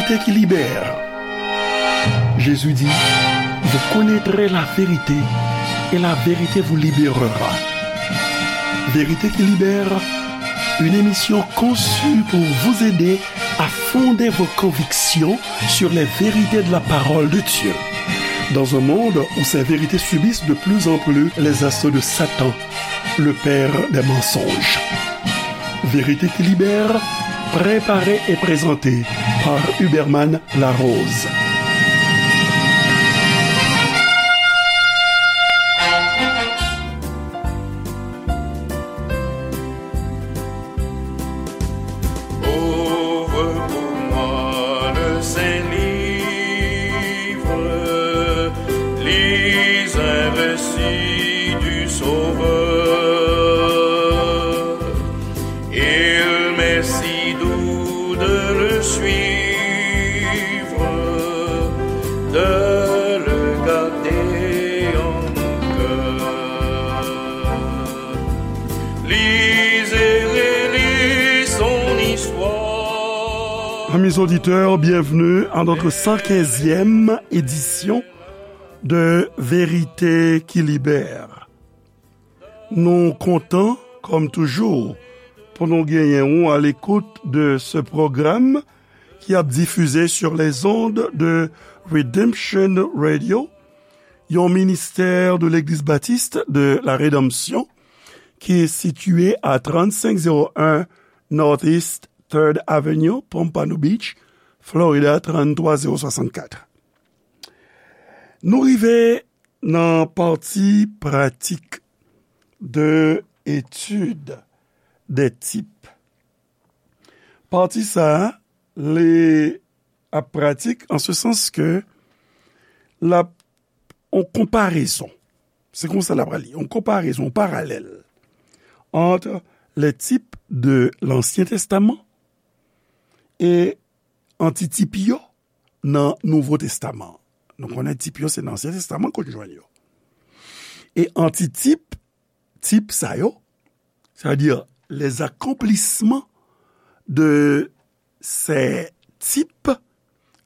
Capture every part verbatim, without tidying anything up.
Vérité qui libère. Jésus dit, vous connaîtrez la vérité et la vérité vous libérera. Vérité qui libère, une émission conçue pour vous aider à fonder vos convictions sur les vérités de la parole de Dieu. Dans un monde où ces vérités subissent de plus en plus les assauts de Satan, le père des mensonges. Vérité qui libère, préparée et présentée par Huberman Larose. Ouvre pour moi le saint livre, lis un récit du Sauveur. Il m'est si doux de le suivre, de le garder en mon cœur. Lisez, relisez son histoire. Amis auditeurs, bienvenue à notre cent quinzième édition de Vérité qui libère. Nou kontan, kòm toujou, pou nou genyen ou à l'écoute de ce programme qui ap difize sur les ondes de Redemption Radio, yon ministè de Legliz Batis de la Redanmsyon ki sitiye a trannsenk zewo en Northeast Third Avenue, Pompano Beach, Florida, tranntrwa zewo swasannkat. Nou rive nan pati pratik de etid de tip. Pati sa a, li ap pratik an se sans ke l ap yon konparezon. Se konsa l ap li, yon konparezon, yon paralèl entre les types de l'Ancien Testament e antitip yo nan Nouvo Testaman. Nou konnen tip yo se nan Ansyen Testaman ke w jwenn yo. E antitip, tip sa yo, c'est-à-dire les accomplissements de ces types,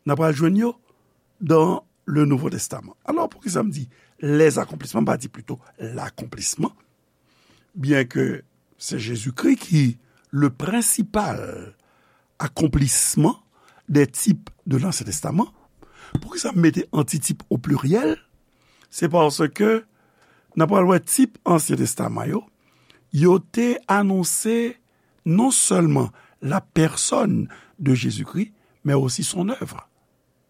n ap pral jwenn yo dans le Nouveau Testament. Alò, poukisa m di les accomplissements, m pa di plito l'accomplissement, byen ke se Jezikri ki le principal accomplissement des types de l'Ancien Testament. Poukisa m mete antitip o pliryèl? Se paske n ap pral wè tip Ansyen Testaman yo, yo te anonse non sèlman la personne de Jésus-Christ, mais aussi son œuvre.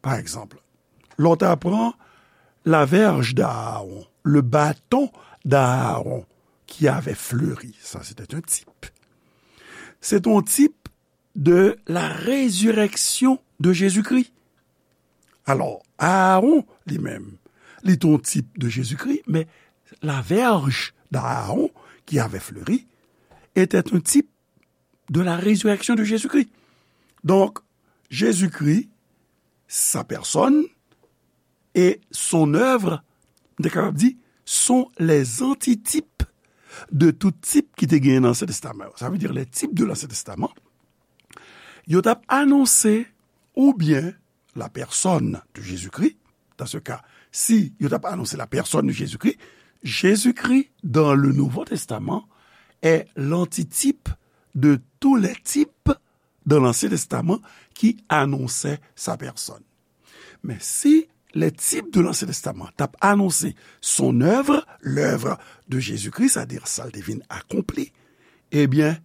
Pa egzanp, lè w ta pran la verge d'Aaron, le bâton d'Aaron qui avait fleuri, ça c'était un type. Se te yon tip de la résurrection de Jésus-Christ. Alò, Aaron, li menm, li te yon tip de Jezikri, men la verge d'Aaron qui avait fleuri était un type de la résurrection de Jésus-Christ. Donk, Jezikri, sa pèsòn e son èv, m te kapab di, sont les antitypes de tout tip ki te genyen nan Ansyen Testaman yo. Sa vle di, les types de l'Ancien Testament, yo t ap anonse oubyen la personne de Jésus-Christ, dans ce cas, si yo t ap anonse la personne de Jésus-Christ, Jésus-Christ dans le Nouveau Testament est l'antitype de tous les types dans l'Ancien Testament qui annonçaient sa personne. Men si les types de l'Ancien Testament t ap anonse son œuvre, l'œuvre de Jésus-Christ, c'est-à-dire sa l te vin akonpli, ebyen,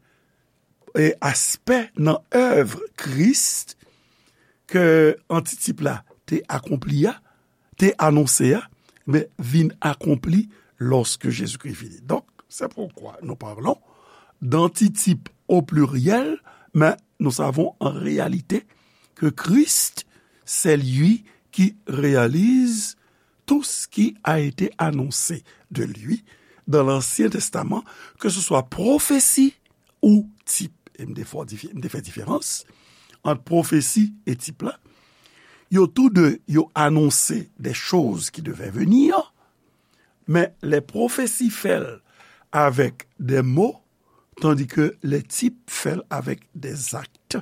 e aspè nan èv Kris ke antitip la te akonpli a, te anonse a, men vin akonpli lorsque Jésus-Christ vini. Donc, c'est pourquoi nous parlons d'antitype au pluriel, mais nous savons en réalité que Christ, c'est lui qui réalise tout ce qui a été annoncé de lui dans l'Ancien Testament, que ce soit prophétie ou type. E m te fè dife-, m te fè diferans ant pwofesi e tip la. Yo tou de, yo anonse des choses qui devaient venir, men les prophéties fè l avèk des mots, tandis que les types fè l avèk des actes,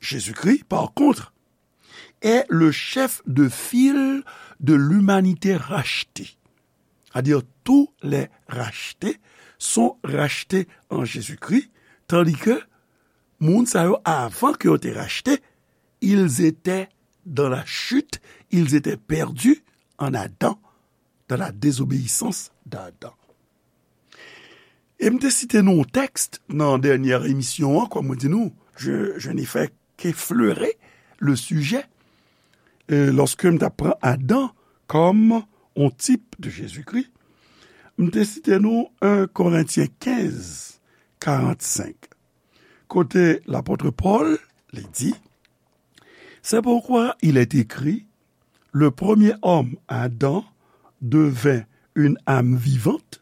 Jésus-Christ, par contre, est le chef de file de l'humanité rachetée. C'est-à-dire, tous les rachetés sont rachetés en Jésus-Christ, tandis que moun sa yo, avan ke yo te rachte, ils étaient dans la chute, ils étaient perdus en Adam, dans la désobéissance d'Adam. E m te site nou yon tèks nan dènyè emisyon an, kòm mwen di nou, je, je n'ai fait qu'effleurer le sujet, euh, lorsque m t ap pran Adan kòm yon tip de Jezikri. M te site nou un Korentyen kenz, karannsenk, kote lapot Pòl, li di, c'est pourquoi il est écrit, le premier homme, Adam, devint une âme vivante,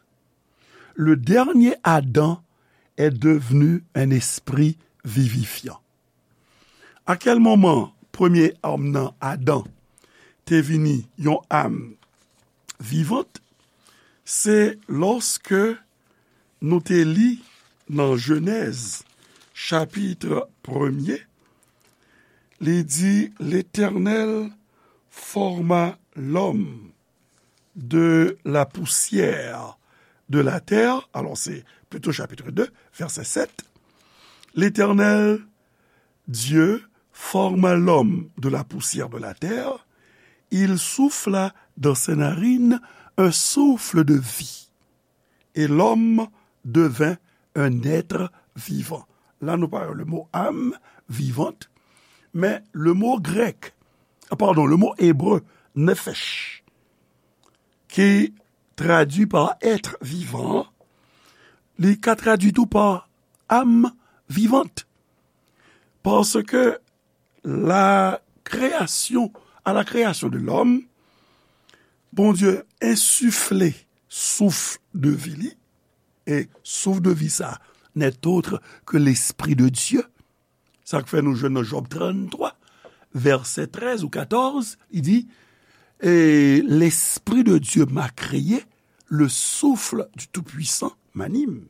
le dernier Adam est devenu un esprit vivifiant. A kèl moman premye òm nan, Adan, te vini yon am vivant? Se lòske nou te li nan Jenèz, chapit premye, li di, L'Éternel forma l'homme de la poussière de la terre. Alors, c'est plutôt chapitre deux, verset sept. L'Éternel Dieu forma l'homme de la poussière de la terre. Il souffla dans ses narines un souffle de vie. Et l'homme devint un être vivant. La, nou pa wè le mo âme vivante, men le mo grèk, ah, pardon, le mo hébreu, nephesh, ki tradui pa être vivant, li ka tradui tou pa âme vivante. Paske la création, à la création de l'homme, Bondye ensifle souf de vi li, e souf de vi sa, n'est autre que l'Esprit de Dieu. Sa k fè nou jwenn nan Jòb tranntwa, vèsè trèz ou katòz, li di, Et l'Esprit de Dieu m'a créé, le souffle du Tout-Puissant m'anime.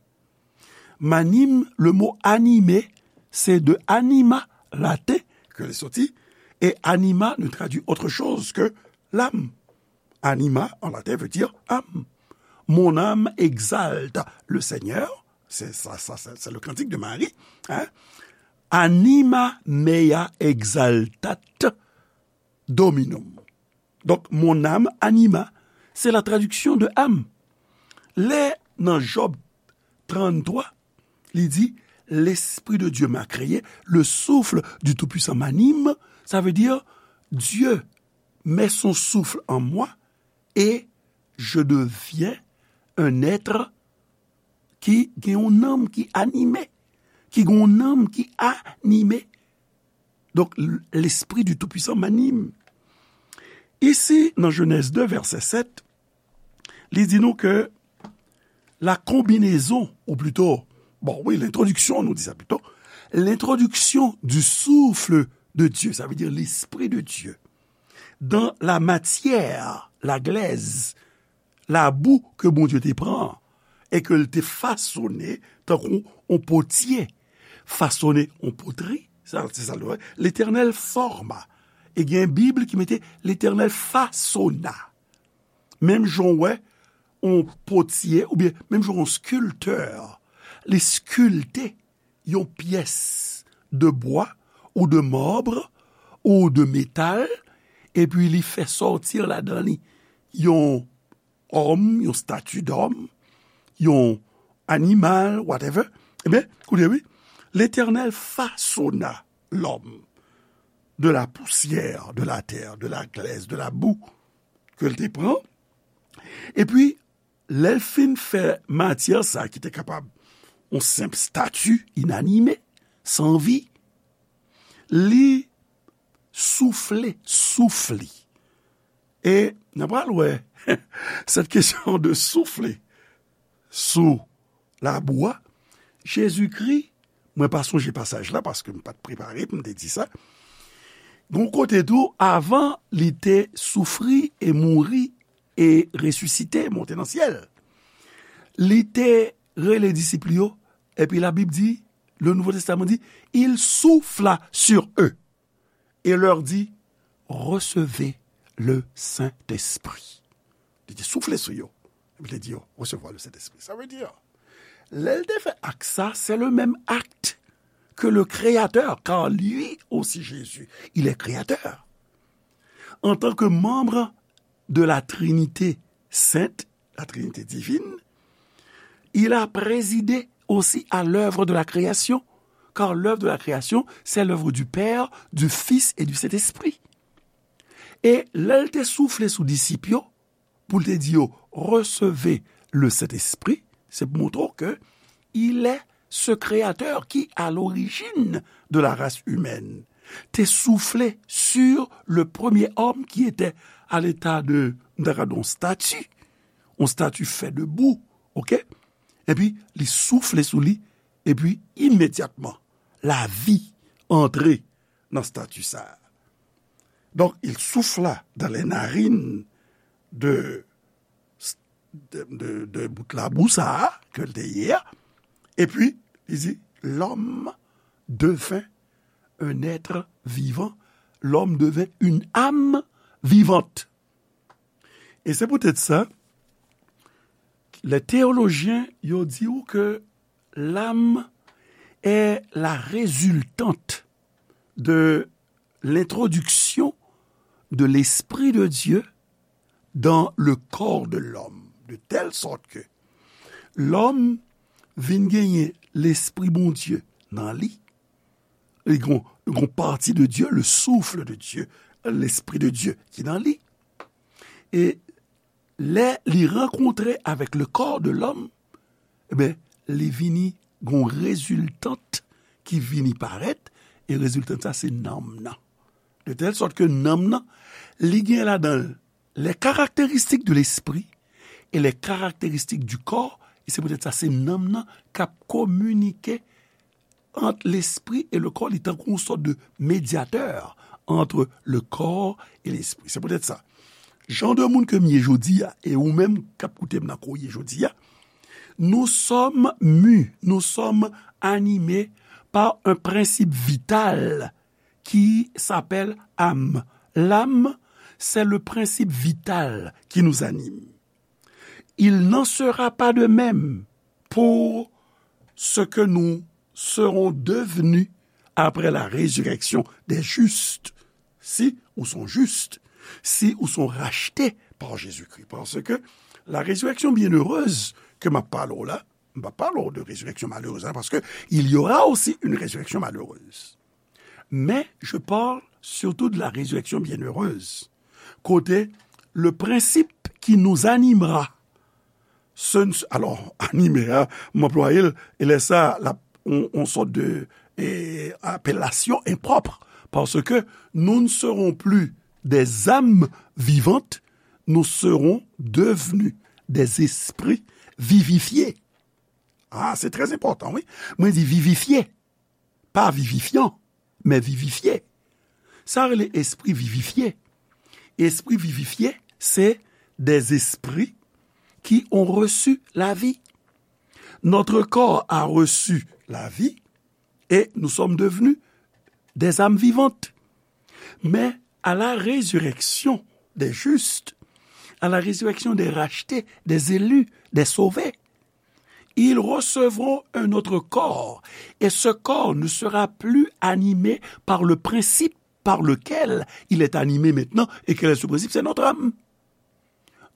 M'anime, le mot animer, c'est de anima, latin, ke li soti, et anima ne traduit autre chose que l'âme. Anima, en latin, veut dire âme. Mon âme exalte le Seigneur, c'est ça, ça, c'est, c'est le cantique de Marie, hein? Anima mea exaltat Dominum. Donk, mon âme anima, c'est la traduction de âme. Lè nan Jòb tranntwa, li di, L'Esprit de Dieu m'a créé, le souffle du Tout-Puissant m'anime, ça veut dire, Dieu met son souffle en moi et je deviens un être ki gen yon nanm ki anime, ki gen yon nanm ki anime. Donk, l'Esprit du Tout-Puissant m'anime. Isi, nan Jenèz de, vèsè sèt, li di nou ke la combinaison, ou plutôt, bon, wi, l'introduction, nou di sa plito, l'introduction du souffle de Dieu, ça veut dire l'Esprit de Dieu, dans la matière, la glaise, labou ke Bondye te pran e ke l te fasone tankou on potye fasone on potri, sa, se sa l vle. L'Éternel forma. E gen Bib ki mete L'Éternel fasona. Menm jan w wè on potye, oubyen menm jan on skiltè, li skilte yon pyès de bwa ou de mab ou de metal, epi li fè sòti ladan li yon òm, yon stati dòm, yon animal, whatever. Ebyen, koute wi, Letènèl fasona lòm de la pousyè de la tè, de la glès, de la boue ke l te pran. Epi, lè l fin fè matyè sa ki te kapab yon senp stati inanime, san vi, li soufle, souf li. E n a pral wè cette question de souffler sous la boue. Jezikri, mwen pa sonje pasaj la paske m pa t prepare pou m te di sa. Gon kote tou, avan li te soufri e mouri e resisite, monte nan syèl, li te rele disip li yo, epi Labib di, le Nouveau Testament dit, il souffla sur eux et leur dit, recevez le Saint-Esprit. Li te soufle sou yo. Epi li te di yo, resevwa le Sentespri. Sa vle di, lè l te fè ak sa, c'est le même acte que le Créateur, car lui aussi Jésus, il est créateur. En tant que membre de la Trinité sainte, la Trinité divine, il a présidé aussi à l'œuvre de la création, car l'œuvre de la création, c'est l'œuvre du Père, du Fils et du Saint-Esprit. E lè l te soufle sou disip yo, pou l te di yo, recevez le Saint-Esprit, se pou montre w ke il est ce créateur qui, à l'origine de la race humaine, te soufle sur le premier homme qui était à l'état de, m ta ka di yon stati, yon stati fè de bou, ok? Epi, li soufle sou li, epi imedyatman, lavi antre nan stati sa a. Donc, il souffla dans les narines de, de, de, de bout labou sa a, ke l te ye a, epi, li di, l'homme devint un être vivant, l'homme devint une âme vivante. E se poutèt sa, les théologiens, yo di w ke l'âme est la résultante de l'introduction de l'Esprit de Dieu dans le corps de l'homme, de telle sorte que l'homme vin genyen Lespri Bondye nan li, li gon, gon pati de Dieu, le souffle de Dieu, l'Esprit de Dieu ki nan li. E lè li rankontre avec le corps de l'homme, e ben, li vini gon reziltant ki vini parèt, e reziltant sa se nanm nan. De telle sorte que nanm nan, li gen ladan l les caractéristiques de l'esprit et les caractéristiques du corps, e se poutèt sa se nanm nan k ap kominike ant lespri e le corps, li tankou yon sòt de médiateur entre le corps et l'esprit. Se poutèt sa, jan de moun ke m ye jodi a, e ou menm k ap koute m nan ke w ye jodi a, nous sommes mus, nous sommes animés par un principe vital qui s'appelle âme. L'âme, c'est le principe vital qui nous anime. Il n'en sera pas de même pour ce que nous serons devenus après la résurrection des justes, si ou sont justes, si ou sont rachetés par Jésus-Christ. Parce que la résurrection bienheureuse ke m ap pale w la, m pa pale w de résurrection malheureuse, hein, parce que il y aura aussi une résurrection malheureuse. Mais je parle surtout de la résurrection bienheureuse. Kote, le principe qui nous animera, ce n-, alors, animé, hein, m anplwaye l, e lè sa, la, on, on sòt de, eh, appellation impropre, parce que nous ne serons plus des âmes vivantes, nous serons devenus des esprits vivifiés. Ah, c'est très important, oui. Mwen di vivifye. Pa vivifyan, men vivifye. Sa rele espri vivifye. Espri vivifye, c'est des esprits qui ont reçu la vie. Notre corps a reçu la vie et nous sommes devenus des âmes vivantes. Mais à la résurrection des justes, à la résurrection des rachetés, des élus, des sauvés, ils recevront un autre corps, et ce corps ne sera plus animé par le principe par lequel il est animé maintenant. Et quel est ce principe? C'est notre âme.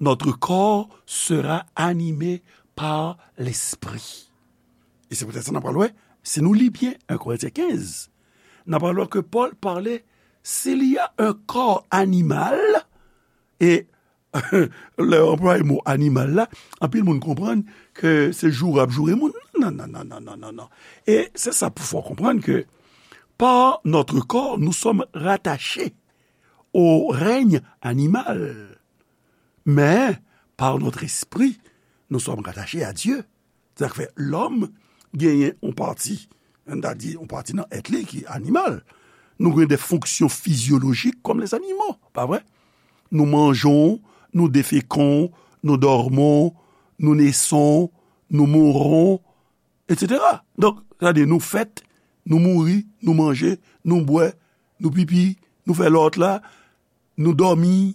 Notre corps sera animé par l'esprit. E se poutèt sa n ap pral wè, si nou li byen un Corinthiens quinze, n ap pral wè ke Pòl pale, s'il y a un corps animal, e lè yo anplwaye mo animal la, anpil moun konprann ke se joure ap joure moun. Non, non, non, non, non, non, non. E se sa pou fè w konprann ke par notre corps, nous sommes rattachés au règne animal. Mais par notre esprit, nous sommes rattachés à Dieu. Sa k fè lòm genyen yon pati, n ta di yon pati nan èt li ki animal. Nou gen de fonksyon fizyolojik kòm lèzanimo, pa vre? Nou manjon, nou defekan, nou dòmon, nou neson, nou mouron. etsetera. Donk, sa di nou fèt, nou mouri, nou manje, nou bwè, nou pipi, nou fè lòt la, nou dòmi,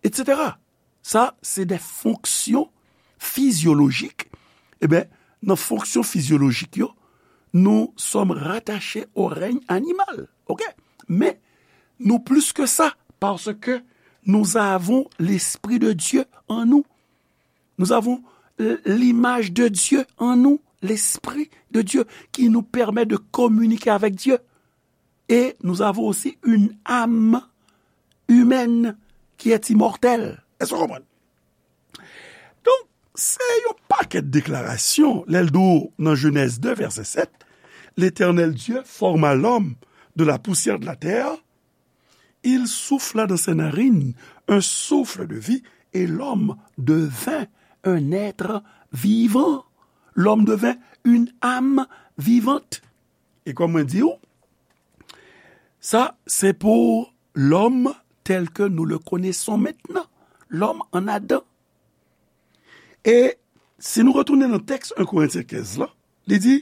etsetera. Sa, se de fonksyon fizyolojik. Eben, nan fonksyon fizyolojik yo, nous sommes rattachés au règne animal. Ok? Men, nou plis ke sa, paske nous avons l'Esprit de Dieu en nous. Nous avons l- l'image de Dieu en nous, l'Esprit de Dieu qui nous permet de communiquer avec Dieu. Et nous avons aussi une âme humaine qui est immortelle. Èske w konprann? Donk, se yon pakèt deklarasyon, lè l di w nan Jenèz de, vèsè sèt, L'Éternel Dieu forma l'homme de la poussière de la terre, il souffla dans ses narines un souffle de vie, et l'homme devint un être vivant. L'homme devint une âme vivante. E kòm mwen di w, sa, se pou l'homme tel que nous le connaissons maintenant, l'homme en Adam. E si nou retounen nan tèks en Korentyen kenz la, li di,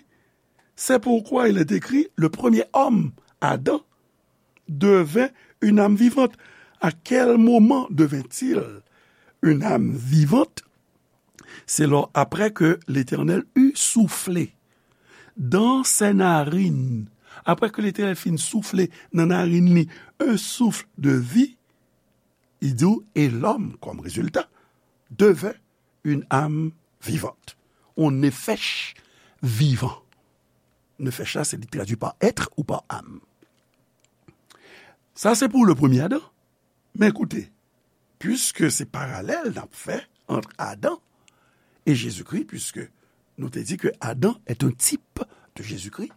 c'est pourquoi il est écrit, le premier homme, Adam, devint une âme vivante. À quel moment devint-il une âme vivante? C'est lors, après que l'Éternel eut soufflé dans ses narines. Apre ke Letènèl fin soufle nan narin li un souffle de vie, li di w, et l'homme, comme résultat, devint une âme vivante. On nefesh vivan. Nefesh la, se li tradui pa être ou pa âme. Sa se pou le premye Adan. Men koute, piske se paralèl n ap fè ant Adan e Jezikri, piske nou te di ke Adan est un type de Jésus-Christ.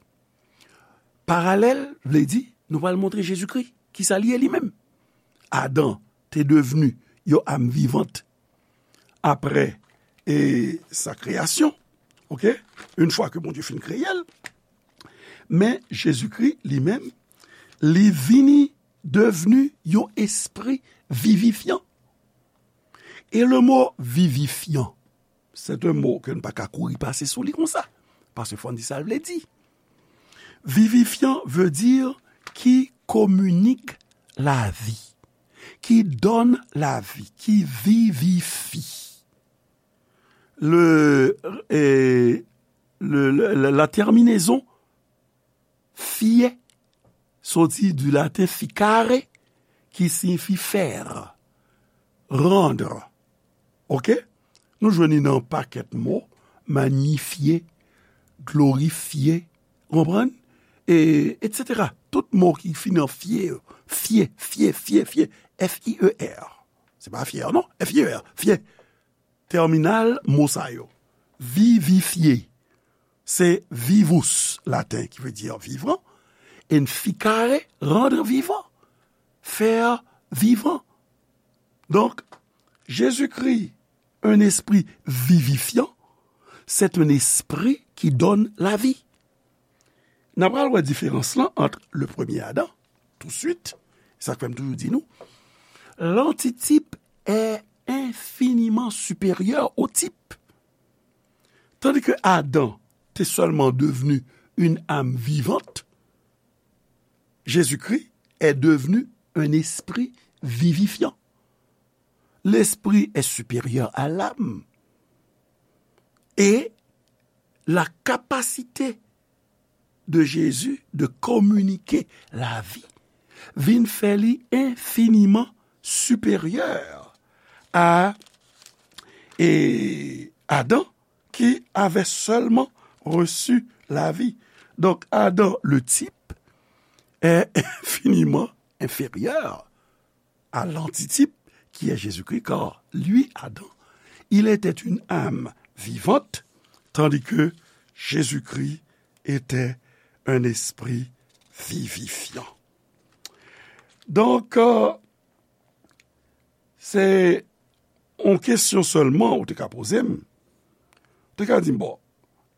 Paralèl vle di, nou pral montre Jezikri, kisa li ye li menm. Adan te devni yon âme vivante apre e sa kreyasyon, ok? Une fois que Bondye fin kreye l. Men Jezikri li menm, li vini devni yon espri vivifyan. E le mo vivifyan, c'est un mot ke n pa ka kouri pase sou li konsa, paske fò n di sa l vle di. Vivifyan veut dire qui communique la vie, qui donne la vie, qui vivifie. Le, eh, le, le, la, la terminaison fie soti du latin ficare, qui signifie faire, rendre. Ok? Nou jwenn li nan pakèt mo, magnifier, glorifier, ou konprann? E, etsetera. Tout mo ki fini an fie, fie, fie, fie, fie, F I E R. Se pa fier, non? F I E R, fie. Tèminal mo sa yo. Vivifye, se vivus, laten, ki vle di vivan, and ficare, rendre vivant, faire vivant. Donk, Jezikri, un esprit vivifiant, c'est un esprit qui donne la vie. N a pral wè diferans lan ant le premye Adan, touswit, sa k fè m toujou di nou, l'antitype est infiniment supérieur au type. Tandis que Adam te seulement devenu une âme vivante, Jésus-Christ est devenu un esprit vivifiant. L'esprit est supérieur à l'âme. Et la capacité de Jésus de communiquer la vie vin fè li infiniman siperyè a e Adan, qui avait seulement reçu la vie. Donc, Adam, le type, est infiniment inférieur à l'antitype qui est Jésus-Christ, car lui, Adam, il était une âme vivante, tandis que Jésus-Christ était un esprit vivifiant. Donk, euh, se yon kesyon sèlman ou te ka poze m. Ou te ka di m, bon,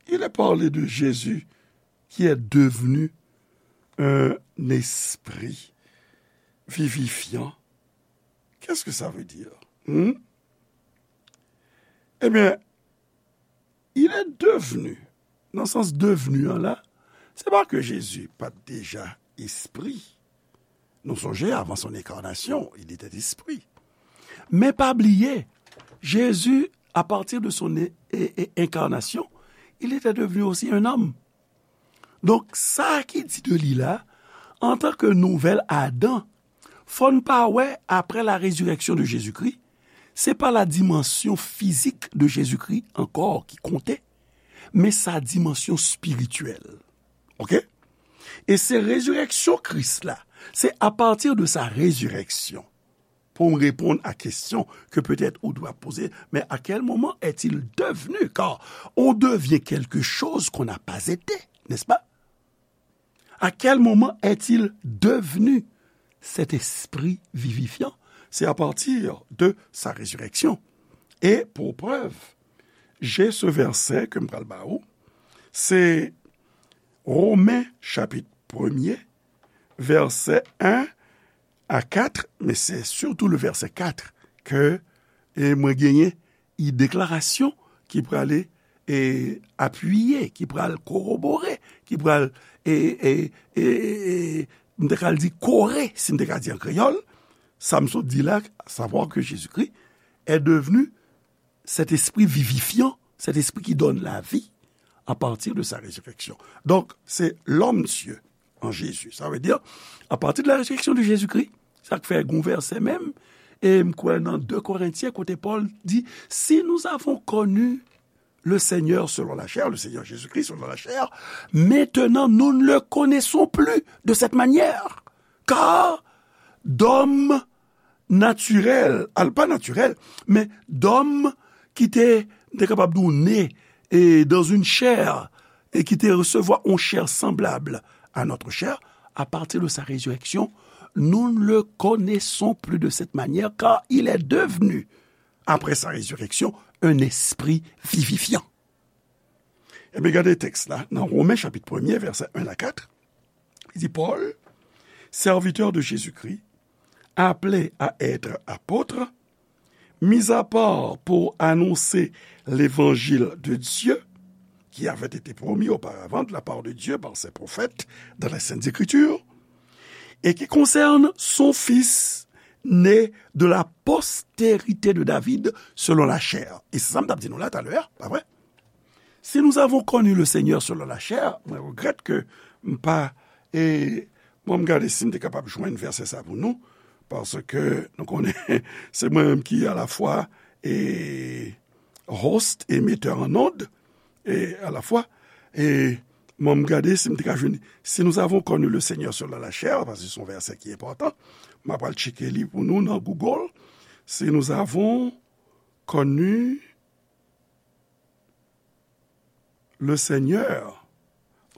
il est parlé de Jésus qui est devenu un esprit vivifiant. Qu'est-ce que ça veut dire? Hmm? Eh bien, il est devenu nan sans devni an la, se pa ke Jezi pa t deja espri. Nou sonje, avant son incarnation, il était esprit. Men pa bliye, Jezi, à partir de son é- é- é- incarnation, il était devenu aussi un homme. Donk, sa ki di de li la, antanke nouvèl Adan, fò n pa wè, après la résurrection de Jésus-Christ, se pa la dimansyon fizik de Jezikri ankò ki konte, men sa dimansyon espirityèl. Oke? E se rezireksyon Kris la, se à partir de sa résurrection, pour répondre à question que peut-être ou doit poser, mais à quel moment est-il devenu? Car on devient quelque chose qu'on n'a pas été, n'est-ce pas? À quel moment est-il devenu cet esprit vivifiant? C'est à partir de sa résurrection. Et pour preuve, j'ai ce verset ke m pral ba ou, se Romen chapit premye, vèsè en a kat, men se sitou le vèsè kat ke, e, mwen genyen, e, deklarasyon ki prale, e, apiye, ki pral korobore, ki pral, e, e, e, e, e, m te ka di kore, si m te ka di an kreyòl, sa m sot di la, savoir que Jésus-Christ est devenu cet esprit vivifiant, cet esprit qui donne la vie à partir de sa résurrection. Donk, se lòm Dye an Jezi. Sa vle di, à partir de la résurrection de Jésus-Christ, sa k fè gon vèsè menm, e m kwè nan de Korentyen, kote Pòl di, si nous avons connu le Seigneur selon la chair, le Seigneur Jésus-Christ selon la chair, maintenant nous ne le connaissons plus de cette manière. Car d'hommes naturels, al pa natirèl, men d'hommes ki te, m te kapab di w, ne, e, dans une chair, et qui te recevoir une chair semblable à notre chair, à partir de sa résurrection, nous ne le connaissons plus de cette manière, car il est devenu, après sa résurrection, un esprit vivifiant. Ebyen, gade tèks la, nan Romen chapit premye, vèsè en a kat, li di, Paul, serviteur de Jésus-Christ, appelé à être apôtre, mis à part pour annoncer l'évangile de Dieu, qui avait été promis auparavant de la part de Dieu par ses prophètes dans les Saintes Écritures, et qui concerne son Fils, né de la postérité de David selon la chair. E se sa m t ap di nou la talè, pa vre? Si nous avons connu le Seigneur selon la chair, mwen regrèt ke m pa, e, bon, m gade si m te kapab jwenn vèsè sa pou nou, paske nou konnen, se mwen menm ki alafwa, e, host e metteur en onde, e alafwa, e, bon, m gade si m te ka jwenn, si nous avons connu le Seigneur selon la chair, paske se yon vèsè ki enpòtan, m ap al tcheke li pou nou nan Google, si nous avons connu le Seigneur,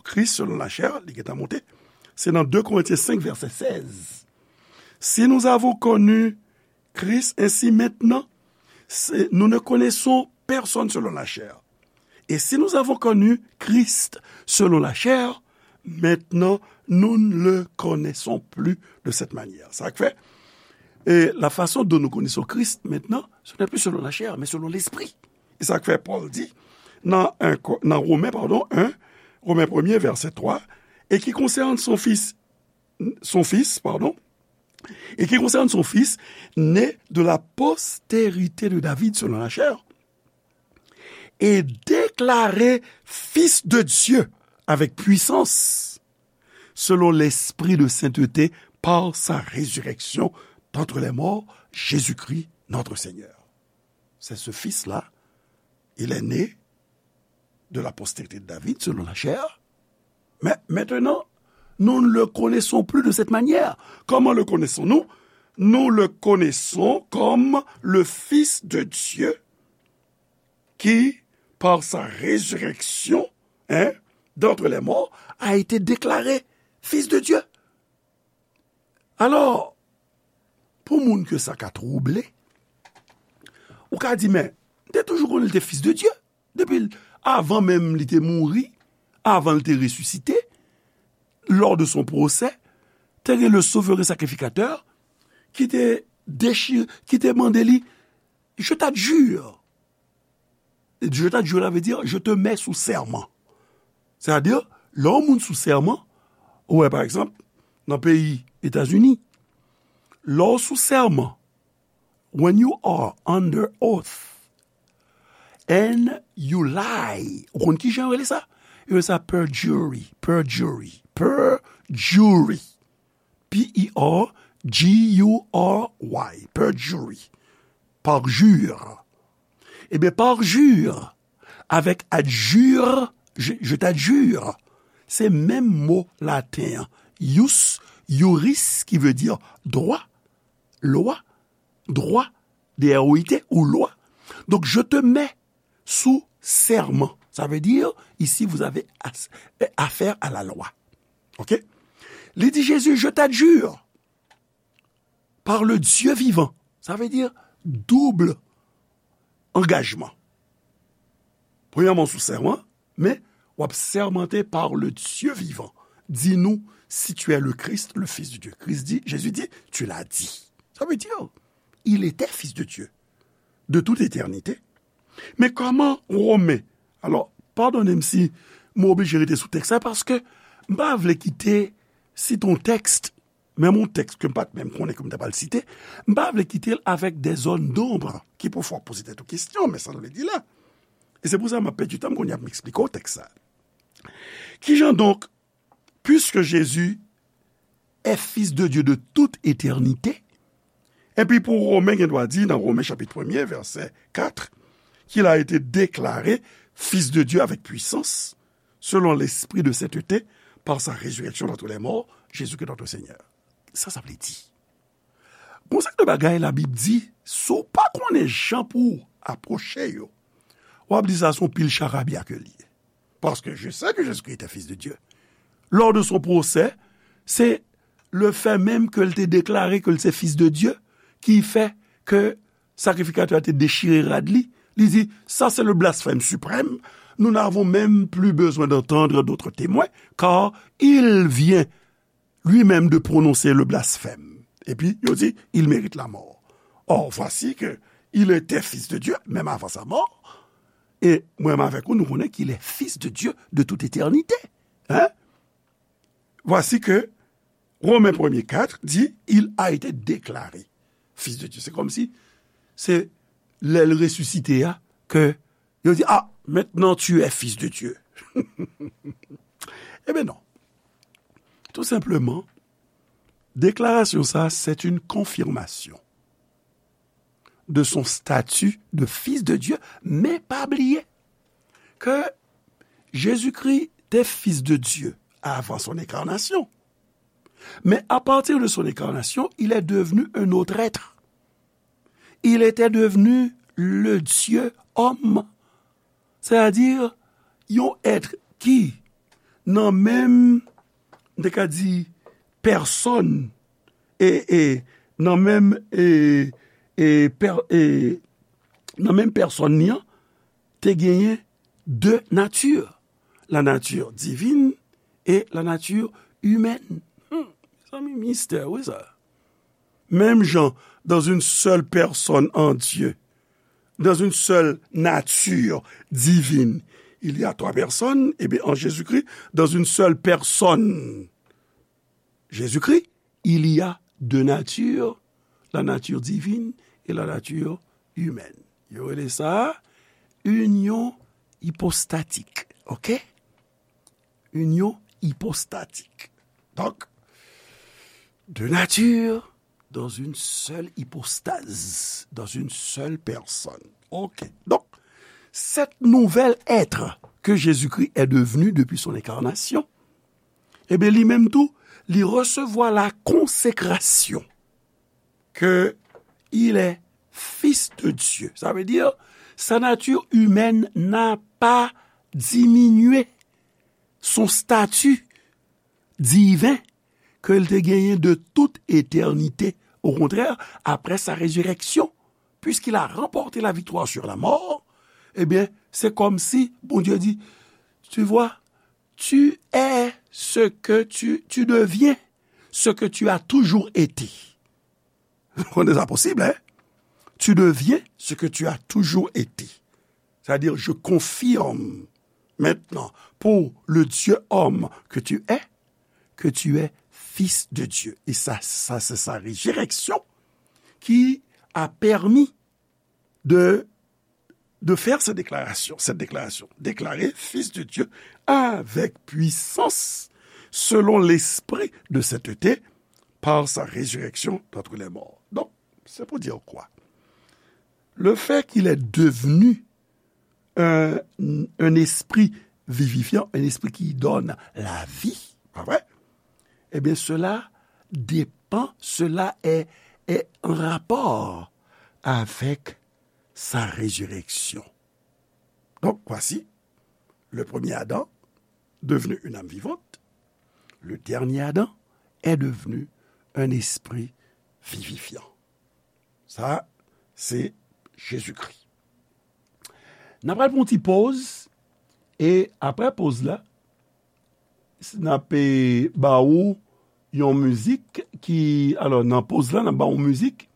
Christ selon la chair, li gentan monte. Se nan de Korentyen senk, vèsè sèz. Si nous avons connu Christ, ainsi maintenant, c'est- nous ne connaissons personne selon la chair. Et si nous avons connu Christ selon la chair, maintenant, nous ne le connaissons plus de cette manière. Sa k fè, e, la façon dont nous connaissons Christ maintenant, ce n'est plus selon la chair, mais selon l'esprit. E sa k fè Pòl di, nan, en Ko- nan Romen, padon, en, Romen premye, vèsè twa, et qui concerne son Fils, son Fils, pardon, et qui concerne son Fils, né de la postérité de David selon la chair, et déclaré Fils de Dieu avec puissance, selon l'Esprit de sainteté, par sa résurrection d'entre les morts, Jésus-Christ, notre Seigneur. C'est ce Fils-là, il est né de la postérité de David, selon la chair. Mais maintenant, nous ne le connaissons plus de cette manière. Comment le connaissons-nous? Nous le connaissons comme le Fils de Dieu qui, par sa résurrection, hein, d'entre les morts, a été déclaré Fils de Dieu. Alò, pou moun ke sa ka twouble, ou ka di, men, m te toujou konnen li te Fis de Dye. Depi l- avan menm li te mouri, avan l te resisite, lors de son procès, te gen le souverain sacrificateur ki te dechire, ki te mande li, je t'adjure. Je t'adjure la vle di, je te mets sous serment. Sètadi, lè yon moun sou sèman, ou wè, pa egzanp, nan peyi Etazini, lè w sou sèman, when you are under oath and you lie, ou konn ki jan yo rele sa? Yo rele sa perjury, perjury, perjury. P E R J U R Y, perjury. Parjure. Ebyen, parjure avèk adjure, je, je t'adjure, se menm mo laten an, ius, iuris, ki vle di dwa, lwa, dwa, D R O I T, ou lwa. Donk, je te mets sous serment. Ça veut dire, ici, vous avez as- affaire à la loi. OK? Li di Jezi, je t'adjure par le Dieu vivant. Ça veut dire double engagement. Premyèman, sou sèman, men w ap sèmante par le Dieu vivant. Dis-nous si tu es le Christ, le Fils de Dieu. Christ dit, Jésus dit, tu l'as dit. Ça veut dire, il était Fils de Dieu de toute éternité. Men kòman Women, alò, padone m si mwen oblije rete sou tèks la, paske m pa vle kite site yon tèks, menm yon tèks ke m pa t menm konnen ke m ta pral site, m pa vle kite l avèk des zones d'ombre ki pou fè w poze tèt ou kesyon, men sa l vle di la. E se pou sa m ap pèdi tan m kounye a pou m eksplike w tèks sa. Kijan donk, puisque Jésus est Fils de Dieu de toute éternité, epi pou Women gen dwa di nan Women chapit premye, vèsè kat, qu'il a été déclaré Fils de Dieu avec puissance, selon l'Esprit de sainteté, par sa résurrection d'entre les morts, Jésus-Christ notre Seigneur. Sa sa vle di? Gon seri de bagay Labib di, si w pa konnen jan pou w apwoche yo, w ap di sa se yon pil charabya ke l ye. Parce que je sais que Jésus-Christ était Fils de Dieu. Lors de son procès, c'est le fait même que l te déclaré que l se Fils de Dieu qui fait que sakrifikatè a te dechire rad li. Li di, ça c'est le blasphème suprême. Nous n'avons même plus besoin d'entendre d'autres témoins, car il vient lui-même de prononcer le blasphème. Epi, yo di, il mérite la mort. Or, voici que il était Fils de Dieu, même avant sa mort. E mwen menm avèk ou, nou konnen qu'il est Fils de Dieu de toute éternité. Hein? Voici que Romains premier quatre dit, il a été déclaré Fils de Dieu. Se kòmsi se lè l resisite a ke yo di, ah, maintenant tu es Fils de Dieu. Ebyen non. Tou senpleman, deklarasyon sa, c'est une confirmation de son statut de Fils de Dieu, men pa bliye ke Jezikri te Fils de Dieu avant son incarnation. Mais à partir de son incarnation, il est devenu un autre être. Il était devenu le Dieu homme. Sètadi, yon èt ki nan menm, m te ka di, pèsòn, e, e, nan menm, e, e, pè-, e, nan menm pèsòn li an, te genyen de nati. La nature divine et la nature humaine. Hmm, mezanmi, mistè, wi sa. Menm jan, dans une seule personne en Dieu, dans une seule nature divine, il y a trois personnes, eh bien, en Jésus-Christ, dans une seule personne, Jésus-Christ, il y a deux natures, la nature divine et la nature humaine. Yo rele sa inyon ipostatik, OK? Inyon ipostatik. Donk, de nature dans une seule hypostase, dans une seule personne. OK. Donc, cet nouvel être que Jésus-Christ est devenu depuis son incarnation, eh bien, li menm tou, li resevwa la consécration que il est fils de Dieu. Ça veut dire, sa nature humaine n'a pas diminué son statut divin ke l te genyen de tout eternite. Au contraire, après sa résurrection, puisqu'il a remporté la victoire sur la mort, eh bien, c'est comme si Bondye di, tu vois, tu es ce que tu, tu deviens ce que tu as toujours été. Konnen sa posib, hein? Tu deviens ce que tu as toujours été. C'est-à-dire, je confirme maintenant pour le Dieu homme que tu es, que tu es fils de Dieu. Et ça, ça, c'est sa résurrection qui a permis de, de faire cette déclaration, cette déclaration. Déclaré fils de Dieu avec puissance, selon l'esprit de sainteté, par sa résurrection d'entre les morts. Donc, c'est pour dire quoi? Le fait qu'il est devenu un, un esprit vivifiant, un esprit qui donne la vie, pas vrai? Eh bien, cela dépend, cela est, est en rapport avec sa résurrection. Donc, voici, le premier Adam devenu une âme vivante, le dernier Adam est devenu un esprit vivifiant. Sa, se Jezikri. N ap pral pran yon ti poz, e apre poz la, n ap, e, ba ou yon mizik ki, alò, nan poz la, n ap ba ou yon mizik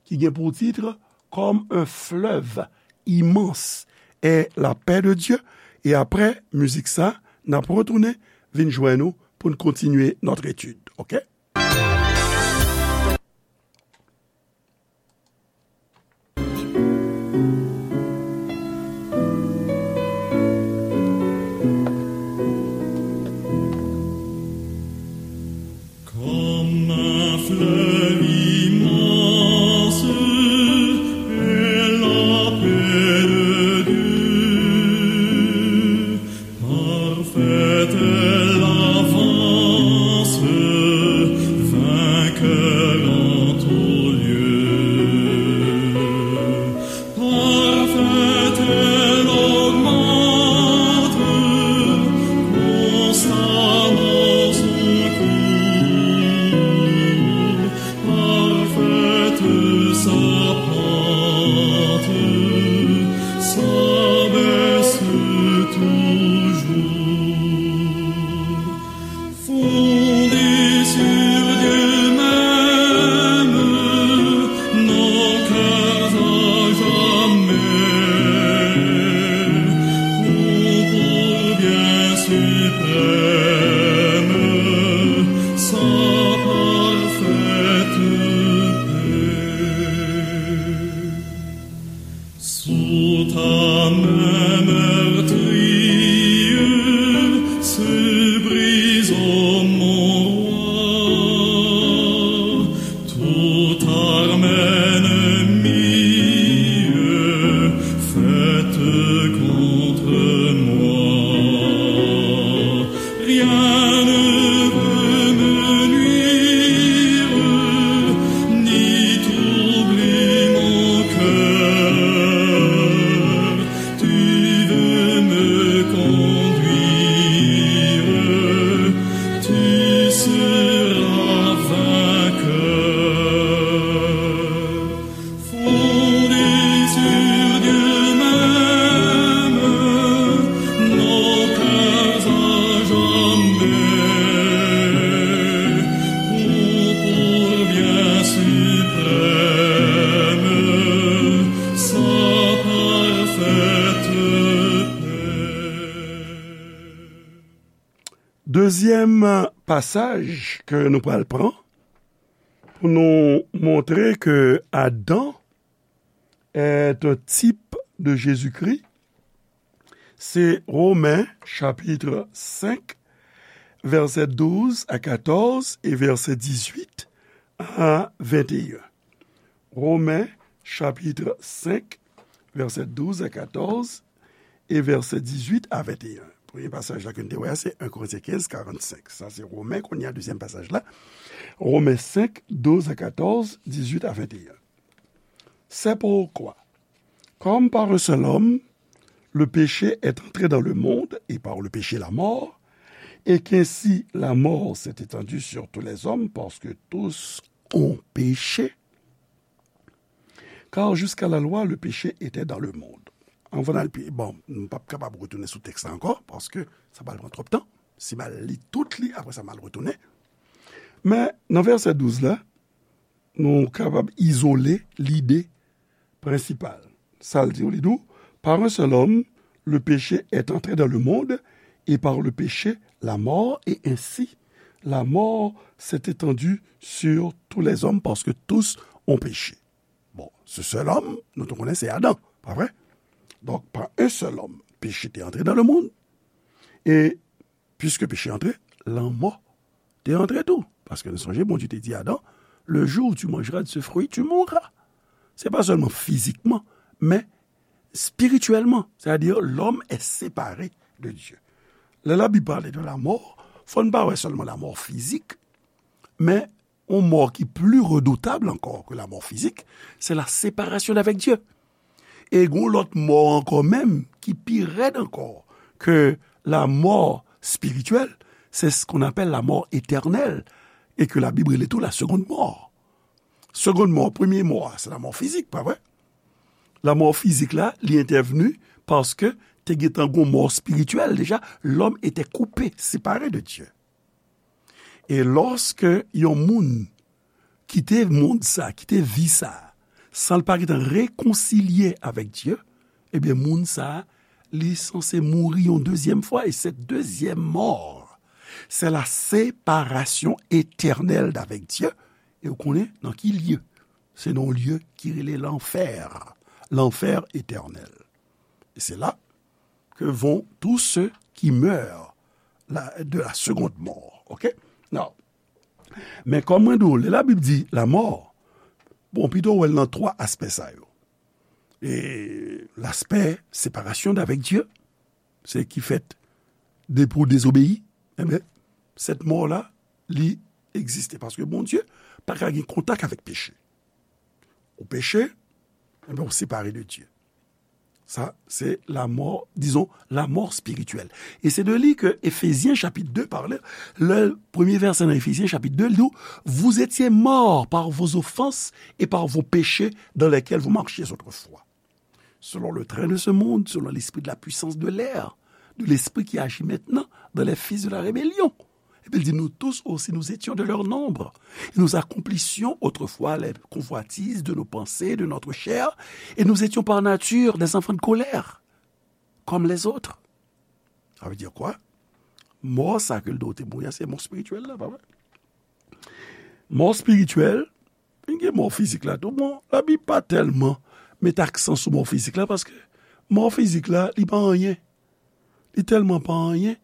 ki gen pou tit Comme un fleuve immense est la paix de Dieu. E apre mizik sa, n ap retounen vin jwenn ou pou n kontinye notre étude, oke? Comme un fleuve immense est la paix de Dieu, parfaite est l'avance, vainqueur en tout lieu. Parfaite, elle augmente constamment son cours. Parfaite sa pente, s'abaisse toujours. Fondés sur Dieu même, nos cœurs à jamais ont pour bien suprême sa parfaite paix. Sous ta main meurtrière se brise, ô mon roi, toute arme ennemie faite contre moi. Rien ne peut me nuire, ni troubler mon cœur. Tu veux me conduire, tu seras vainqueur. Fondés sur Dieu même, nos cœurs à jamais ont pour bien suprême sa parfaite paix. Dezyèm pasaj ke nou pral pran pou nou montre ke Adan est un type de Jésus-Christ, se Romen chapit senk, vèsè douz a katòz e vèsè dizuit a venteyen. Romen chapit senk, vèsè douz a katòz e vèsè dizuit a venteyen. Premye pasaj la ke n te wè a, se en Korentyen kenz, karannsenk. Sa se Romen, kounye a, dezyèm pasaj la. Romen senk, douz a katòz, dizuit a venteyen. C'est pourquoi, comme par un seul homme, le péché est entré dans le monde, et par le péché la mort, et qu'ainsi la mort s'est étendue sur tous les hommes, parce que tous ont péché. Car jusqu'à la loi, le péché était dans le monde. Anvan n al pi, bon, m p ap kapab retounen sou tèks la ankò, paske sa pral pran twòp tan. Si m al li tout li, apre sa m al retounen. Men, nan vèsè douz la, nou kapab izole lide prensipal. Sa l di w, li di w, par un seul homme, le péché est entré dans le monde, et par le péché, la mort, et ainsi, la mort s'est étendue sur tous les hommes, parce que tous ont péché. Bon, ce seul homme, nou te konnen se Adan, pa vre? Donk, pa un seul homme, péché te antre dans le monde, et puisque péché antre, lanmò te antre tou. Paske nou sonje, Bondye te di Adan, le jour où tu mangeras de ce fruit, tu mourras. Se pa sèlman fizikman, men spirityèlman. Sètadi, lòm è separe de Dye. Lè Labib pale de lamò, fò n pa wè sèlman lamò fizik, men yon mò ki pli redoutab ankò ke lamò fizik, se la séparation d'avec Dieu. E gon lòt mò ankò menm ki pi rèd ankò ke lamò spirityèl, c'est ce qu'on appelle la mort éternelle, et que la Bible rele tou la seconde mort. Seconde mort, premye mò a, se lamò fizik, pa vre? Lamò fizik la, li entèvni paske te gentan gon mò spirityèl deja, l'homme était coupé, séparé de Dieu. E lòske yon moun kite mond sa, kite vi sa, san l pa gentan rekonsilye avèk Dye, ebyen, moun sa, li sanse mouri yon dezyèm fwa, e cette deuxième mort, c'est la séparation éternelle d'avec Dieu. E w konnen nan ki lye? Se nan yon lye ki rele lanfè, lanfè etènèl. E se la que vont tous ceux qui meurent la, de la seconde mort. Ok? Now, men kòm mwen di w, lè Labib di lamò, bon, pito wè l nan twa aspè sa yo. E laspè séparation d'avec Dieu, se ki fèt depi w dezobeyi, enben, sèt mò la, li egziste. Paske Bondye pa ka gen kontak avèk peche. Ou peche, enben, ou separe de Dye. Sa, se lamò, dizon, lamò spirityèl. E se de li ke Efezyen chapit de pale, le premye vèsè nan Efezyen chapit de, li di, vous étiez morts par vos offenses et par vos péchés dans lesquels vous marchiez autrefois. Selon le train de ce monde, selon l'esprit de la puissance de l'air, de l'esprit qui agit maintenant dans les fils de la rébellion. Epi l di, nous tous aussi, nous étions de leur nombre. Et nous accomplissions autrefois les convoitises de nos pensées, de notre chair, et nous étions par nature des enfants de colère, comme les autres. Sa vle di kwa? Mò sa ke l do te mouri a, se mò espirityèl la, pa vre? Mò espirityèl, vin gen mò fizik la tou. Bon, Labib pa tèlman met aksan sou mò fizik la, paske mò fizik la, li pa anyen. Li tèlman pa anyen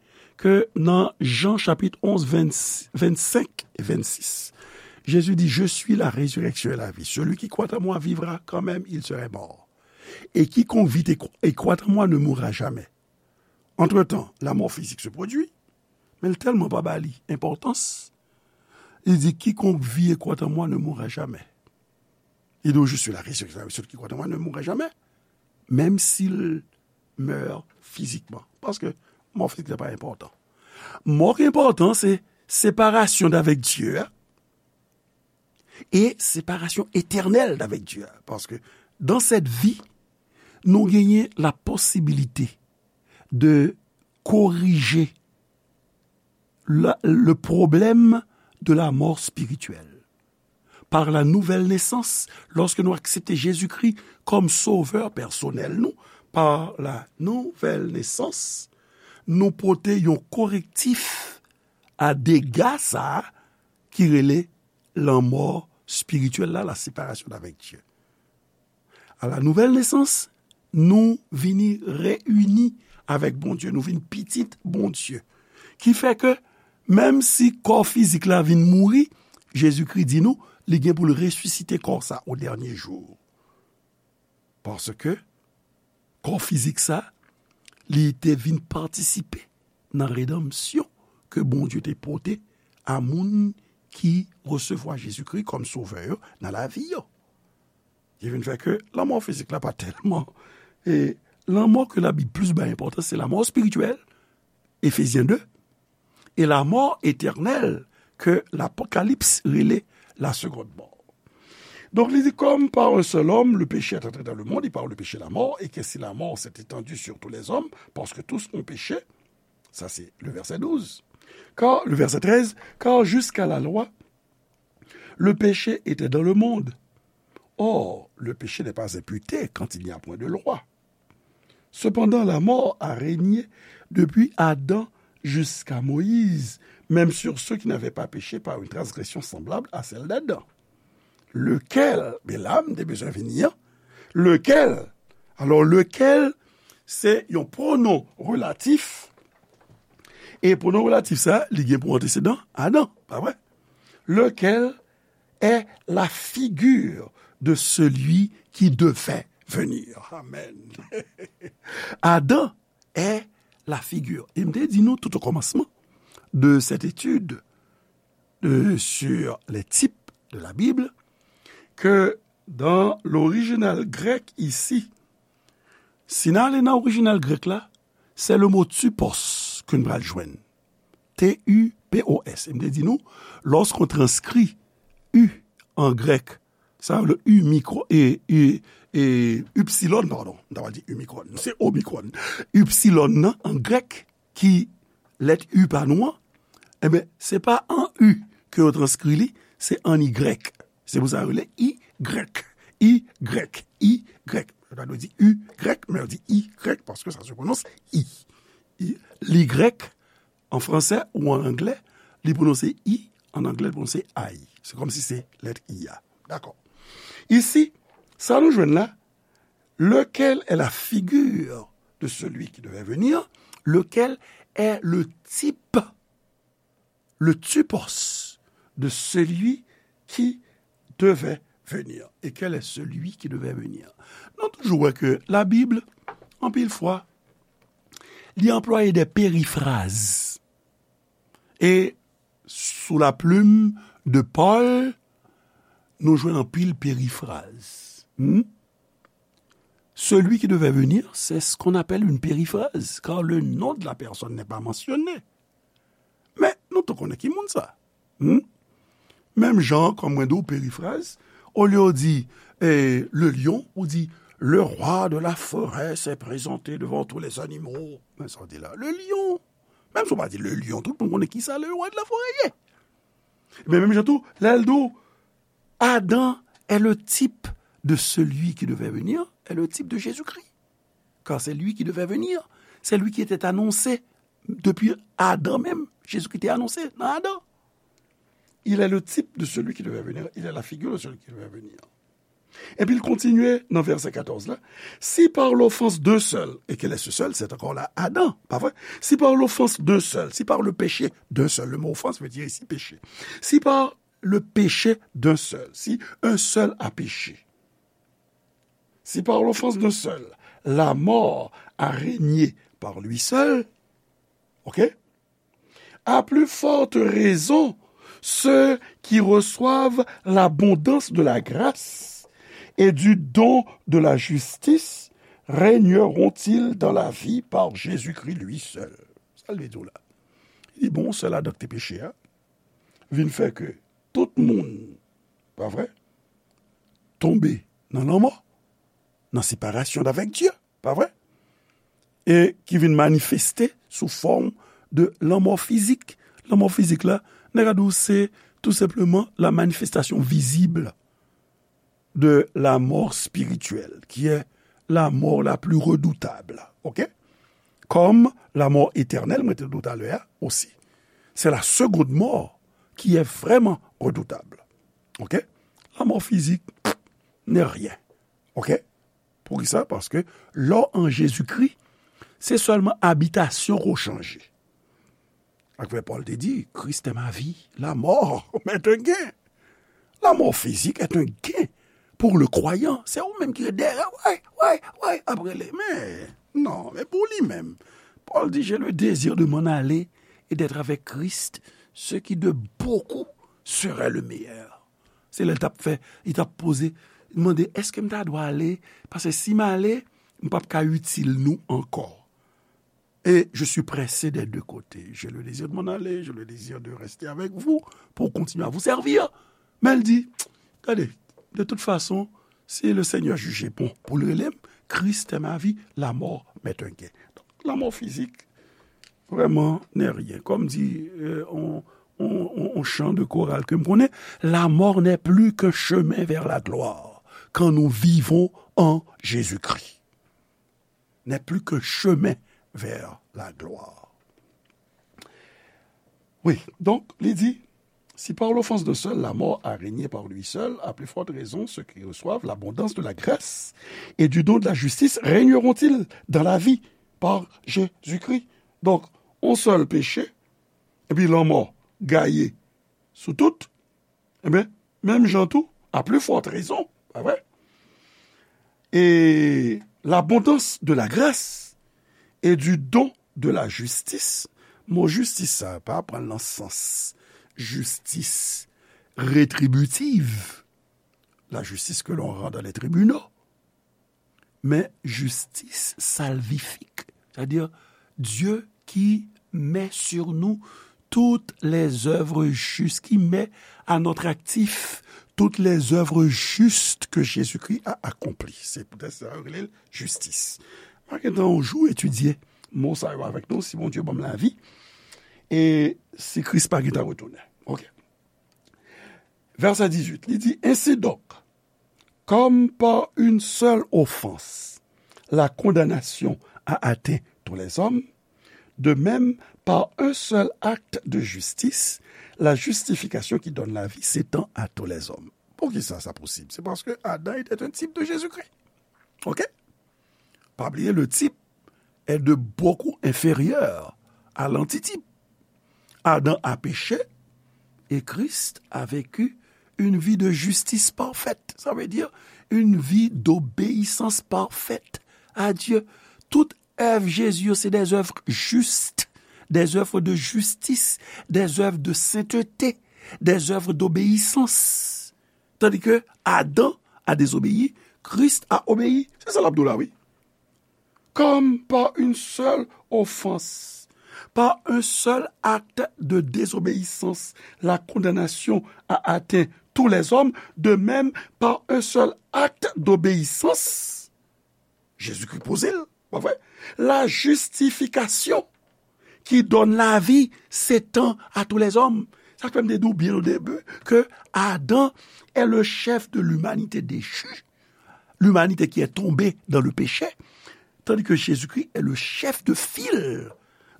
ke nan Jan chapit onz, vennsenk e vennsis, Jezi di, je suis la résurrection et la vie. Celui qui croit en moi vivra quand même il serait mort. Et quiconque vit et cro-, et croit en moi ne mourra jamais. Entre-temps, la mort physique se produit, men l tèlman pa ba li enpòtans, li di, quiconque vit et croit en moi ne mourra jamais. Li di, je suis la résurrection, celui qui croit en moi ne mourra jamais, même s'il meurt physiquement. Paske mò fizik la pa enpòtan. Mò ki enpòtan, se separasyon avèk Dye a, e separasyon etènèl avèk Dye a. Paske dans cette vie, nou genyen la posibilite de corriger la, le problème de la mort spirituelle. Par la nouvelle naissance, lorsque nou aksepte Jezikri kòm sovè pèsonèl nou, par la nouvelle naissance, nou pote yon korektif a dega sa a ki rele lanmò espirityèl la, la séparation avec Dieu. A la nouvelle naissance, nou vini reyini avèk Bondye, nou vin pitit Bondye. Ki fè ke, menm si kò fizik la vin mouri, Jezikri di nou, li gen pou l resisite kò sa o dènye jou. Paske kò fizik sa, li te vin patisipe nan redanmsyon ke Bondye te pote a moun ki resevwa Jezikri kòm sovè yo nan lavi yo. Ki vin fè ke lanmò fizik la pa tèlman, e lanmò ke Labib plis bay enpòtans, se lanmò espirityèl, Efezyen de, e lanmò etènèl ke Lapokalips rele la seconde mort. Donk, li di, comme par un seul homme, le péché est entré dans le monde, et par le péché, la mort, et qu'ainsi la mort s'est étendue sur tous les hommes, parce que tous ont péché. Ça, c'est le verset douze. Car, le verset treize, car jusqu'à la loi, le péché était dans le monde. Or, le péché n'est pas imputé quand il n'y a point de loi. Cependant, la mort a régné depuis Adam jusqu'à Moïse, même sur ceux qui n'avaient pas péché par une transgression semblable à celle d'Adam. Lequel, men la m te bezwen vini an, lequel, alò lequel, se yon pwonon relatif, e pwonon relatif sa, li gen pou antesedan Adam, pa vre? Lequel est la figure de celui qui devait venir. Amen. Adam est la figure. E m te di nou tout o kòmansman de cette étude de, sur les types de la Bible, ke dans l'original grec ici, si n ale nan orijinal grèk la, se le mo tupos ke n pral jwenn. T U P O S. E m te di nou, lorsqu'on transcrit U en grec, sa le U micro, e, e, e, upsilon, pardon, m ta pral di U micron, se omicron. Upsilon nan, an grèk, ki lèt U pa nou an, enben, se pa an U ke yo transkri li, se an Y. Se pou sa yo rele Y, Y, Y. Yo ta dwe di Y, men yo di Y paske sa se pwononse I. I, l'Y an fransè ou an anglè, li pwononse I, an anglè, li pwononse I. Se kòmsi se lèt I a. Dakò. Isi, sa nou jwenn la, lequel est la figure de celui qui devait venir, lequel est le type, le typos de celui qui devait venir. Et quel est celui qui devait venir? Nou toujou wè ke Labib, anpil fwa, li anplwaye de perifraz. E sous la plume de Paul, nou jwenn anpil perifraz. Hmm? Celui qui devait venir, c'est ce qu'on appelle une périphrase, car le nom de la personne n'est pas mentionné. Men, nou tou konnen ki moun sa. Hmm? Menm jan, kòm mwen di w, perifraz, olye w di, eh, le lion, ou di, le roi de la forêt s'est présenté devant tous les animaux. Men sa w di la, le lion. Menm si w pa di le lion, tout moun konnen ki sa le roi de la forêt ye. Men menm jan tou, lè l di w, Adam est le type de celui qui devait venir, est le type de Jésus-Christ. Car c'est lui qui devait venir, c'est lui qui était annoncé depuis Adam même. Jésus-Christ était annoncé dans Adam. Il est le type de celui qui devait venir, il est la figure de celui qui devait venir. Epi l kontinye nan vèsè katòz la, si par l'offense d'un seul, et quel est ce seul? C'est encore là Adam, pa vre? Si par l'offense d'un seul, si par le péché d'un seul, le mot offense veut dire ici péché. Si par le péché d'un seul, si un seul a péché, si par l'offense d'un seul, la mort a régné par lui seul, ok? À plus forte raison, ceux qui reçoivent l'abondance de la grâce et du don de la justice régneront-ils dans la vie par Jésus-Christ lui seul. Sa l vle di w la? Li bon, sèl Adan ki te peche a, vin fè ke tout moun, pa vre, tonbe nan lanmò, nan separasyon avèk Dye, pa vre? E ki vin manifeste sou fòm de lanmò fizik. Lanmò fizik la, nèg la di w se tou senpleman la manifestasyon vizib de la mort spirituelle, qui est la mort la plus redoutable, ok? Comme la mort éternelle, mwen te di w talè a osi. C'est la seconde mort qui est vraiment redoutable, ok? La mort physique n'est rien, ok? Poukisa? Paske lè w an Jezikri, se sèlman abitasyon ke w chanje. Sa k fè Pòl te di, Christ est ma vie, la mort m'est un gain. La mort physique est un gain pour le croyant. Se ou menm ki ret dèyè, wè, wè, wè, ap rele. Men, non, men pou li menm. Pòl di, j'ai le désir de m'en aller et d'être avec Christ, ce qui de beaucoup serait le meilleur. Se lè l t ap fè, li t ap poze, li mande, èske m ta dwe ale? Paske si m ale, m p ap ka itil nou ankò. Et je suis pressé des deux côtés. J'ai le désir de m'en aller, j'ai le désir de rester avec vous pour continuer à vous servir. Men l di, gade, de toute façon, si le Seigneur jugeait bon pou l rele m, Christ est ma vie, la mort m'est un gain. Donc, la mort physique, vraiment, n'est rien. Comme dit, euh, on, on, on, on chant de chorale ke m konnen, la mort n'est plus qu'un chemin vers la gloire quand nous vivons en Jésus-Christ. n'est plus qu'un chemin vers la gloire. Wi, donk, li di, si par l'offense d'un seul la mort a régné par lui seul, à plus forte raison ceux qui reçoivent l'abondance de la grâce et du don de la justice régneront-ils dans la vie par Jésus-Christ. Donk, yon sèl peche, epi lanmò gaye sou tout, enben, menm jan tou, à plus forte raison, pa vre? Et l'abondance de la grâce et du don de la justice. Mo jistis sa pa pran nan sans jistis retribitiv, la justice que l'on rend dans les tribunaux, mais justice salvifique, c'est-à-dire Dieu qui met sur nous toutes les œuvres justes, qui met à notre actif toutes les œuvres justes que Jésus-Christ a accomplies. C'est peut-être ça, jistis. Mwen gen tan yon jou etidye mo sa yo avèk nou, si Bondye ban m lavi, e si Kris pa gen tan retounen. Ok. Vèsè dizuit, li di, ainsi donc, comme par une seule offense, la condamnation a atteint tous les hommes, de même, par un seul acte de justice, la justification qui donne la vie s'étend à tous les hommes. Poukisa sa posib? C'est parce que Adam était un type de Jésus-Christ. Ok? Pa bliye, le type est de beaucoup inférieur à l'antitype. Adam a péché et Christ a vécu une vie de justice parfaite. Ça veut dire une vie d'obéissance parfaite à Dieu. Tout œuvre Jésus, c'est des œuvres justes, des œuvres de justice, des œuvres de sainteté, des œuvres d'obéissance. Tandis que Adam a désobéi, Christ a obéi. C'est ça l'abdoula, oui. Comme par une seule offense, par un seul acte de désobéissance, la condamnation a atteint tous les hommes, de même, par un seul acte d'obéissance, Jésus-Christ poze l, pa vre? La justification qui donne la vie s'étend à tous les hommes. Sa k fè m te di w byen o debi ke Adam est le chef de l'humanité déchue, l'humanité qui est tombée dans le péché, tandis que Jésus-Christ est le chef de file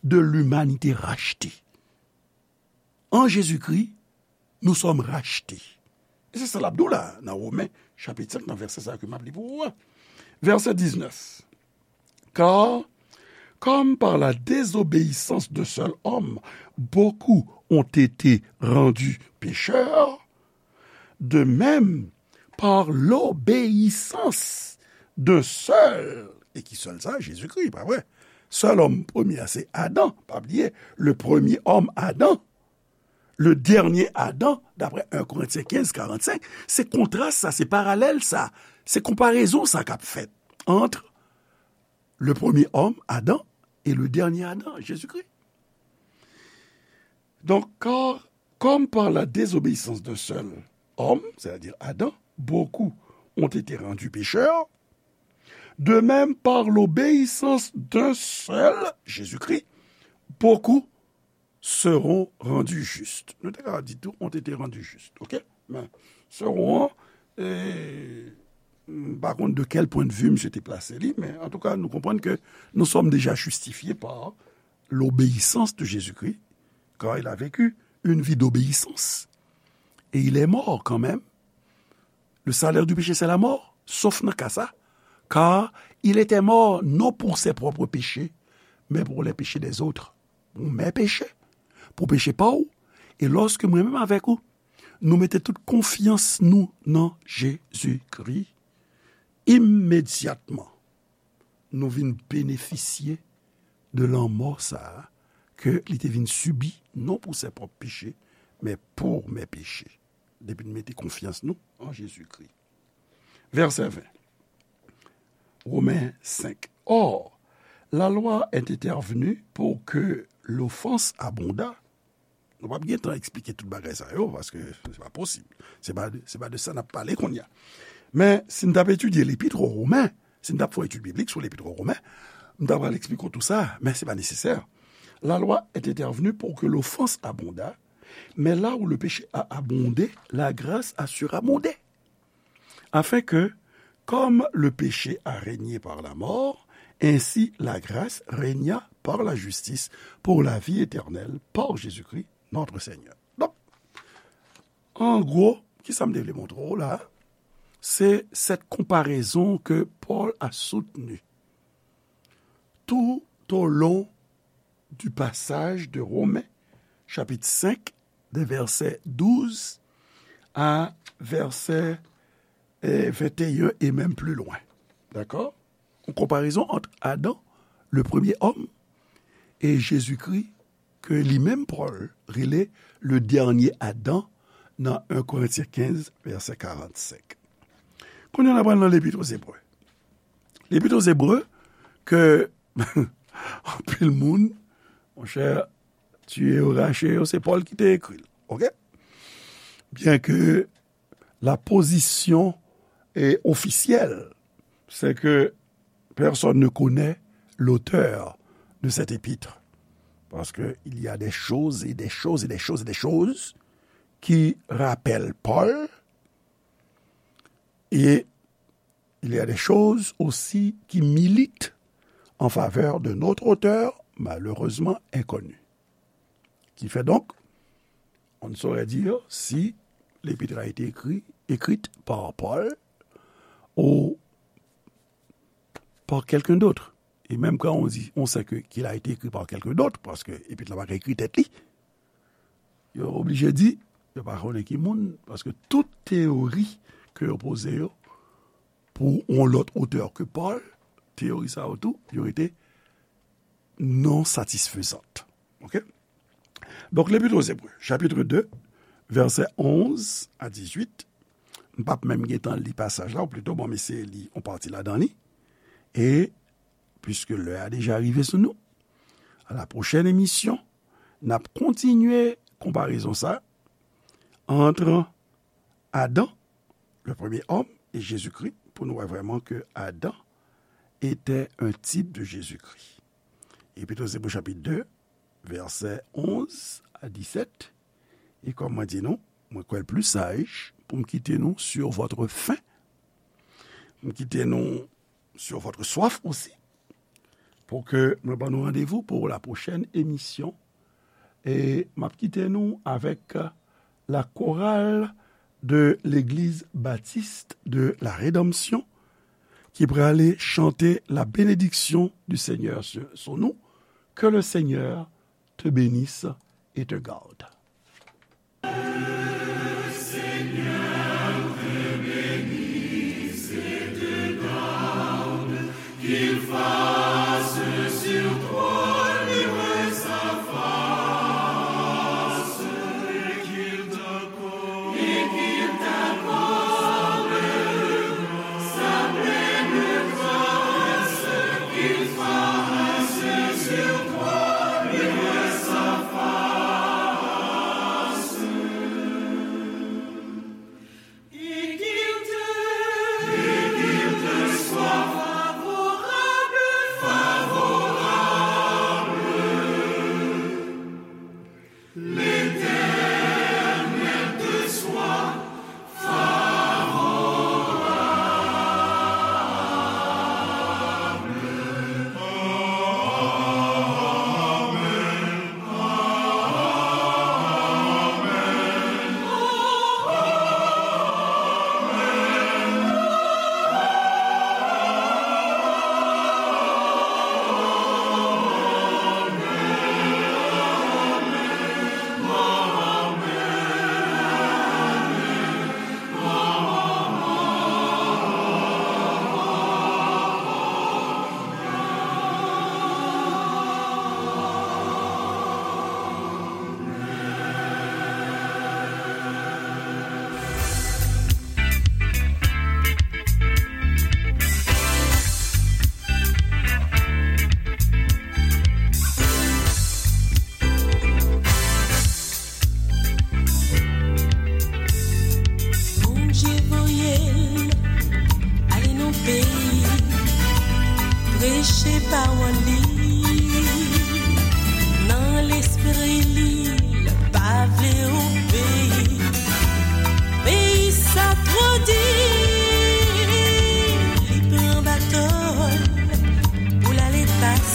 de l'humanité rachetée. En Jésus-Christ, nous sommes rachetés. E se sa l ap di w la, nan Women, chapit senk, nan vèsè sa ke m ap li pou ou a. Vèsè diznèf. Car, comme par la désobéissance d'un seul homme, beaucoup ont été rendus pécheurs, de même, par l'obéissance d'un seul, et qui seul ça? Jésus-Christ, pa vre? Sèl òm premye a, se Adan. Pa bliye, le premier homme, Adam, le dernier Adam, d'après un Corinthiens quinze, quarante-cinq, se kontras sa, se paralèl sa, se konparezon sa k ap fèt entre le premier homme, Adam, et le dernier Adam, Jésus-Christ. Donc, car, comme par la désobéissance d'un seul homme, c'est-à-dire Adam, beaucoup ont été rendus pécheurs, de même par l'obéissance d'un seul, Jésus-Christ, beaucoup seront rendus justes. Nou te ka di tou, ont été rendus justes, ok? Men, seront an, e, m pa konn de quel point de vue misye te plase li, men antouka, nou konprann ke nous sommes déjà justifiés par l'obéissance de Jésus-Christ, car il a vécu une vie d'obéissance. Et il est mort quand même. Le salaire du péché, c'est la mort, sauf nan ka sa, car il était mort non pour ses propres péchés, mais pour les péchés des autres. Pou mè peche, pou peche pa w, e lòske mwen menm avèk ou, nou mete tout konfyans nou nan Jezikri, imedyatman, nou vin benefisye de lanmò sa a ke li te vin sibi, non pou sè pwòp peche, men pou mè peche. Depi n mete konfyans nou an Jezikri. Vèsè ven. Women senk. Or, la loi est intervenue pour que l'offense abonda. Nou p ap gen tan eksplike tout bagay sa yo, paske se pa posib. Se pa, se pa de sa n ap pale kounye a. Men, si n t ap etidye Lepit o Women, si n t ap fè etid biblik sou Lepit o Women, m ta pral eksplike w tou sa, men se pa nesesè. La loi est intervenue pour que l'offense abonda, mais là où le péché a abondé, la grâce a surabondé. Afin que, comme le péché a régné par la mort, Ainsi, la grâce régna par la justice pour la vie éternelle par Jésus-Christ, notre Seigneur. Donk, an gwo, ki sa m te vle montre w la? C'est cette comparaison que Paul a soutenue tout au long du passage de Romains, chapitre cinq, des versets douze à verset, euh, vingt et un et même plus loin. D'accord? Une comparaison entre Adam, le premier homme, et Jésus-Christ, ke li menm Pòl rele le dènye Adan nan en Korentyen kenz, vèsè karannsenk. Kounye a n ap pral nan Lepit o Zebre. Lepit o Zebre ke anpil moun, monchè, tiye yo, rache yo, se Pòl ki te ekri l. Oke? Byen ke la position est officielle, c'est que personne ne connaît l'auteur de cette épître. Parce qu'il y a des choses et des choses et des choses et des choses qui rappellent Paul, et il y a des choses aussi qui militent en faveur d'un autre auteur, malheureusement inconnu. Qui fait donc, on ne saurait dire si l'épître a été écrit, écrite par Paul ou par quelqu'un d'autre. Et même quand on dit, on sait que, qu'il a été écrit par quelqu'un d'autre, paske epit la pa ka ekri tèt li, yo oblije di, yo pa konnen ki moun, paske tout teyori ke yo poze yo pou yon lòt otè ke Pòl, teyori sa yo tou, yo rete non satisfezant. Oke? Donk, Lepit o Zebre, chapit de, vèsè onz a dizuit, m p ap menm gentan li pasaj la, ou plito ban m eseye li yon pati ladan li. E, piske lè a deja rive sou nou, a la pwochèn emisyon, n ap kontinye konparezon sa ant Adan, le premier homme, et Jésus-Christ, pou nou wè vrèman ke Adan était un type de Jésus-Christ. Epit o Zebre chapit de, vèsè onz a disèt. E kòm mwen di nou, mwen kwè l pli saj pou m kite nou sur votre faim. M kite nou sur votre soif aussi, pou ke mwen ban nou randevou pou la pwochèn emisyon. E m ap kite nou avèk la chorale de l'Église Baptiste de la Rédemption ki prale chante la bénédiction du Seigneur sur, sur nous. Que le Seigneur te bénisse et te garde.